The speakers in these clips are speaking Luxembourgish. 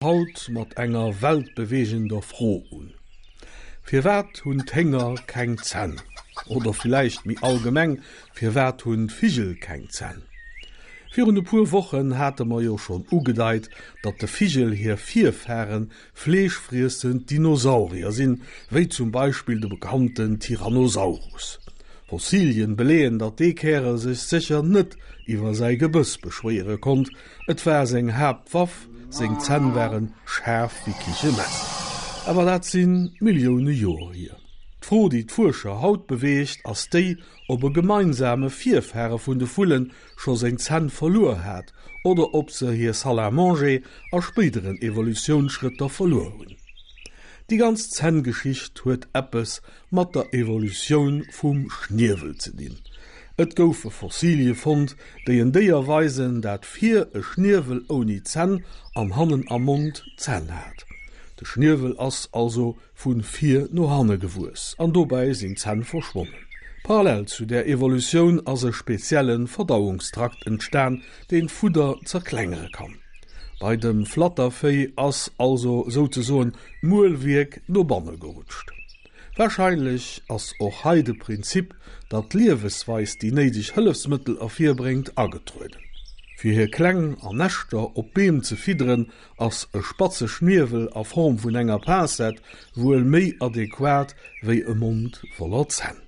Haut mat enger weltbeweegender Fro un, Firwat hunn d'Hénger keng Zänn? Oder villäicht méi allgemeng, Firwat hunn d'Vigel keng Zänn? Virun e puer Wochen hate mer jo schonn ugedeit, datt de Vigel hir Virfaren fleeschfriessend Dinosaurier sinn, wéi zum Beispill de bekannten Tyrannosaurus. Fossilien beleeën, datt dee Kärel sech sécher net iwwer säi Gebëss beschwéiere konnt, Et war seng Haaptwaff, seng Zänn ware schaarf wéi Kichemesser. Awer dat si Millioune Joer hier. D'Fro, déi d'Fuerscher haut beweegt, ass déi, ob e gemeinsame Virfare vun de Vulle scho seng Zänn verluer hat oder ob se hir Salle à manger a spéideren Evolutiounsschrëtter verluer hunn. Déi ganz Zänngeschicht huet eppes mat der Evolutioun vum Schniewel ze dinn. Et goufe Fossilie fonnt, déi en Déier weisen, dat vir e Schniewel ouni Zänn an hannen am Mond Zänn hat. De Schniewel ass also vu vir no hanne gewuess an dobäi sinn d'Zänn verschwonnen. Parallel zu där Evolutioun ass e spezielle Verdauungstrakt entstan, deen d'Fudder zerklengere kann. Bei dem Flattervéi ass also souzesoen d'Muelwierk no banne gerutscht. Warscheinlech ass och hei de Prinzip, datt d'Liewesweis déi néideg Hëllefsmëttel ervirbréngt, agetrueden. Fir hir Kleng an Näschter op Beem ze fidderen, ass e spatze Schniewel a Form vun enger Pincette wuel méi adequat wéi e Mond voller Zänn.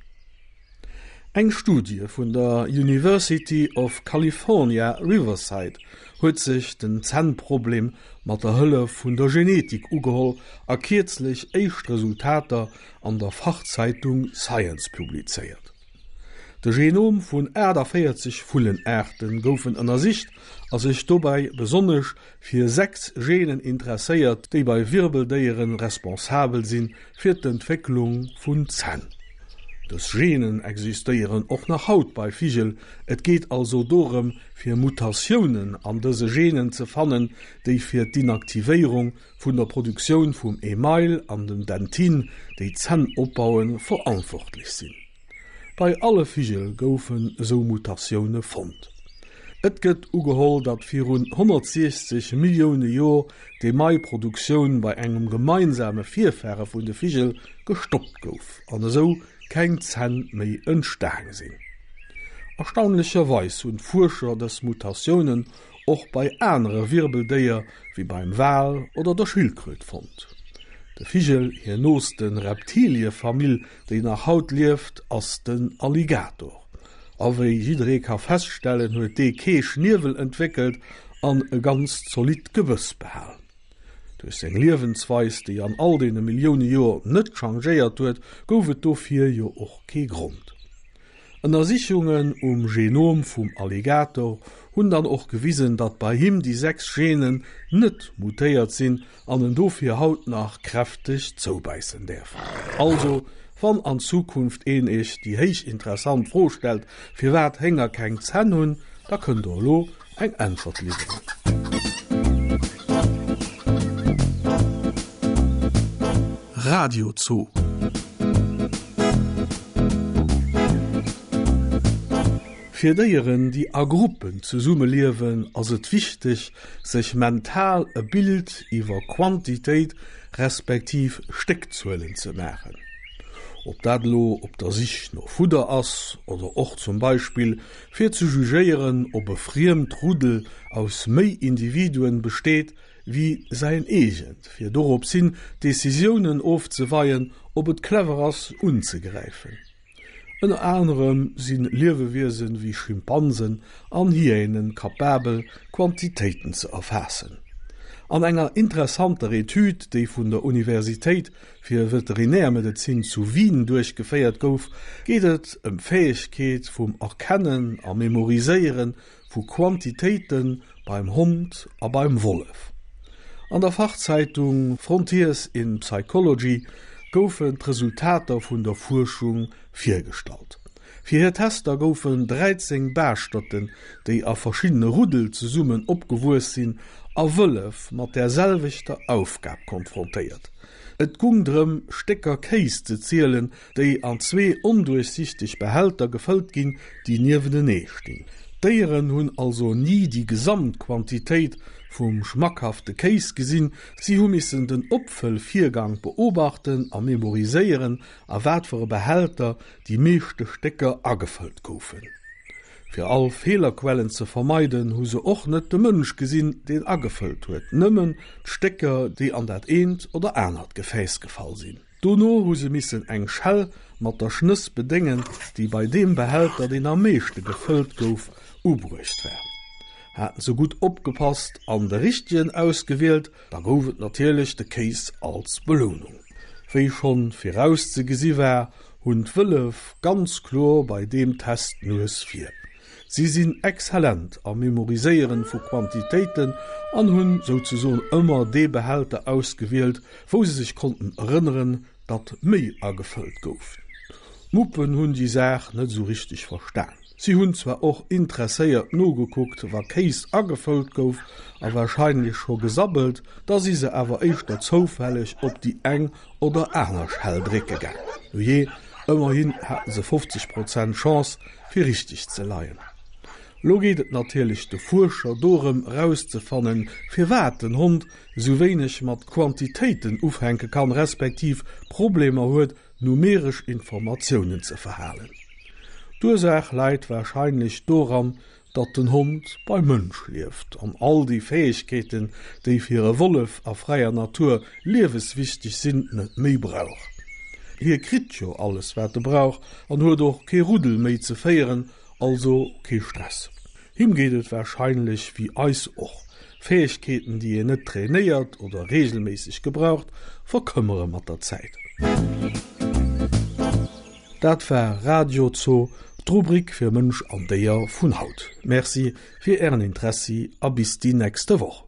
Eng Studie vun der University of California, Riverside huet sech den Zännproblem mat der Hëllef vun der Genetik ugeholl a kierzlech éischt Resultater an der Fachzeitung Science publizéiert. De Genom vun 48 Vullenaarte goufen ënnersicht a sech dobäi besonnesch fir 6 Genen interesséiert, déi bei Wirbeldéiere responsabel sinn fir d'Entwécklung vun Zänn. Dës Genen existéieren och nach haut bei Vigel, et geet also dorëm fir Mutatiounen an dëse Genen ze fannen, déi fir d'Inaktivéierung vun der Produktioun vum Email an dem Dentin, déi d'Zänn opbauen, verantwortlech sinn. Bei alle Vigel goufen esou Mutatioune fonnt. Et gëtt ugeholl, datt virun 160 Millioune Joer d'Emailproduktioun bei engem gemeinsame Virfare vun de Vigel gestoppt gouf an esou keng Zänn méi entstaang sinn. Erstaunlecherweis hunn d'Fuerscher dës Mutatiounen och bei anere Wirbeldéier wéi beim Wal oder der Schildkröt fonnt. De Vigel hir nooste Reptiliefamill déi nach haut lieft, ass den Alligator. A wéi jidderee ka feststellen, huet dee kee Schniewel entwéckelt an e ganz zolidd Gebëss behal. Duerch seng Liewensweis, déi an all deene Millioune Joer net changéiert huet, gouf et dofir jo och kee Grond. Ënnersichungen um Genom vum Alligator hunn dann och gewisen, datt bei him déi 6 Genen net mutéiert sinn an en dofir haut nach kräfteg zoubäissen däerf. Also, wann an Zukunft een iech déi héich interessant Fro stellt, firwat Hénger keng Zänn hunn, da kënnt der elo eng Äntwert liwweren. Radio Zoo. Fir Déieren, déi a Gruppen zesummeliewen, ass et wichteg, sech mental e Bild iwwer Quantitéit respektiv Stéckzuelen ze maachen. Ob dat elo op der Sich no Fudder ass oder och zum Beispill fir ze jugéieren, ob e friemt Ruddel aus méi Individuen besteet wéi säin eegent, fir dorops hin Decisiounen ofzeweien, ob et clever ass unzegräifen. Ënner anerem si Liewewiesen wéi Schimpansen an Hyänen kapabel, Quantitéiten ze erfaassen. An enger interessanter Etüd, déi vun der Universitéit fir Veterinärmedezin zu Wien duerchgeféiert gouf, geet et ëm d'Fäegkeet vum Erkennen a Memoriséiere vu Quantitéite beim Hond a beim Wollef. An der Fachzeitung Frontiers in Psychology goufen d'Resultater vun der Fuerschung virgestallt. Fir hir Tester goufen 13 Baaschterten, déi a verschiddene Ruddel zesummen opgewuess sinn, a Wëllef mat där selwechter Aufgab konfrontéiert. Et gung drëm, Stécker Kéis ze zielen, déi an zwee onduerchsichteg Behälter gefëllt ginn, déi niewenenee stinn. D'Déieren hunn also ni déi gesamt Quantitéit. vum schmackhafte Kéis gesinn, si hu missen den Opfëllvirgang beobachten a memoriséieren, a wat fir e Behälter déi meeschte Stécker agefëllt goufen. Fir all Feelerquellen ze vermeiden, hu se och net de Mënsch gesinn, deen agefëllt huet, nëmmen d'Stécker, déi an dat eent oder anert Gefääss gefall sinn. Dono hu se missen eng Schell mat der Schnëss bedéngen, déi bei deem Behälter, deen am meeschte gefëllt gouf, ubruecht war. Haten se gutt opgepasst an de richtegen ausgewielt, da gouf et natierlech de Kéis als Belounung. Wéi schonn virauszegesi war, hunn d'Wëllef ganz kloer bei deem Test d'Nues vir. Si sinn exzellent am Memoriséieren vu Quantitéiten an hunn souzesoen ëmmer dee Behälter ausgewielt, wou se sech konnten erënneren, datt méi agefëllt gouf. D'Muppen hunn déi Saach net esou richteg verstan. Si hunn zwar och interesséiert nogekuckt, wa Kéis agefëllt gouf, a warscheinlech scho gesabbelt, da si se awer éischter zoufälleg op déi eng oder aner Schell drécke gaang. Nujee, ëmmerhin haten se 50 Prozent Chance, fir richteg ze leien. Lo geet et natierlech de Fuerscher dorëm erauszefannen, firwat den Hond esou wéineg mat Quantitéiten ufänke kann, respektiv Problemer huet, numeresch Informatiounen ze verhalen. D'Ursaach läit warscheinlech doran, datt den Hond beim Mënsch lieft an all déi Fäegkeeten, déi fir e Wollef a fräier Natur lieweswichteg sinn, net méi brauch. Hie kritt jo alles wat e brauch an huet och kee Ruddel méi ze féieren, also kee Stress. Him geet et warscheinlech wéi eis och, Fäegkeeten déi een net trainéiert oder reegelméisseg gebraucht, verkëmmere mat der Zäit. Dat war Radio Zoo, d'Rubrik fir Mënsch an Déier vun haut. Merci fir Ären Interessi a bis déi nächste Woch.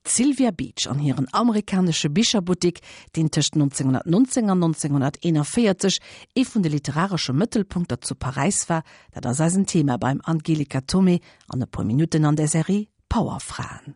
D'Sylvia Beach an hiren amerikanesche Bicherbuttik, deen tëscht 1919 an 1941 ee vun de literaresche Mëttelpunkter zu Paräis war, dat ass eisen Thema beim Angelika Thomé an e puer Minutten an der Serie Powerfraen.